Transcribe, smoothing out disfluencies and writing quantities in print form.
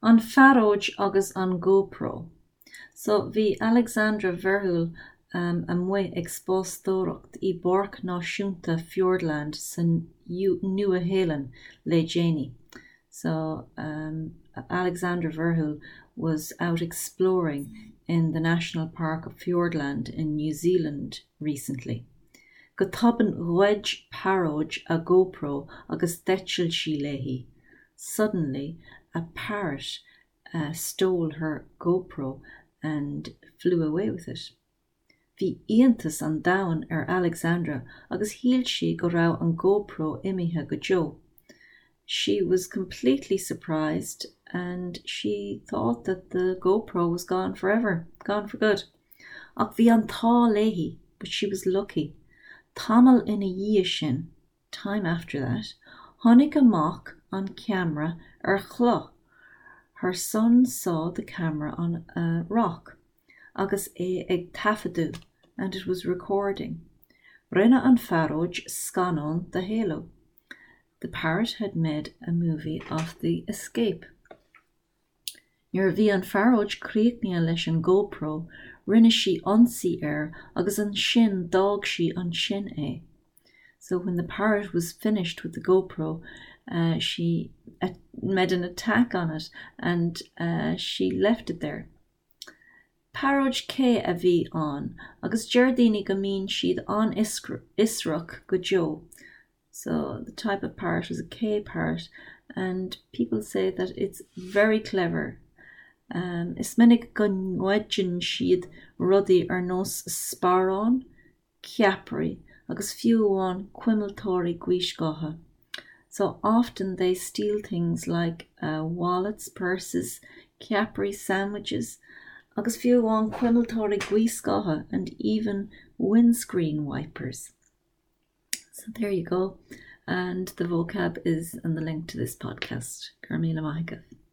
An phearóid agus an GoPro. So bhí Alexandra Verheul amuigh ag spástóireacht i bPáirc Náisiúnta Fiordland sa Nua-Shéalainn le déanaí. So Alexandra Verheul was out exploring in the National Park of Fiordland in New Zealand recently. Go tobann ghoid pearóid a GoPro agus d'eitil sí léi. Suddenly a parrot stole her GoPro and flew away with it. Bhí iontas an domhain ar Alexandra agus shíl sí go raibh an GoPro imithe go deo. She was completely surprised and she thought that the GoPro was gone forever, gone for good. Ach bhí an t-ádh léi, but she was lucky. Tamall ina dhiaidh sin, time after that, chonaic a mac an ceamara ar chloch, her son saw the camera on a rock, agus é ag taifeadadh, and it was recording. Rinne an phearóid scannán de éalú. The parrot had made a movie of the escape. Nuair a bhí an phearóid críochnaithe leis an GoPro, rinne sí ionsaí air agus ansin d'fhág sí ansin é. So when the parrot was finished with the GoPro, she made an attack on it and she left it there. Pearóid Cé a bhí ann agus deir daoine go mbíonn siad an-fhiosrach go deo. So the type of parrot is a K parrot and people say that it's very clever. Um, is minic go ngoideann siad rudaí ar nós sparán, ceapairí agus fiú amháin cuimilteoirí gaothscátha. So often they steal things like uh, wallets, purses, ceapairí sandwiches, agus fiú amháin cuimilteoirí gaothscátha and even windscreen wipers. So there you go. And the vocab is in the link to this podcast. Go raibh míle maith agaibh.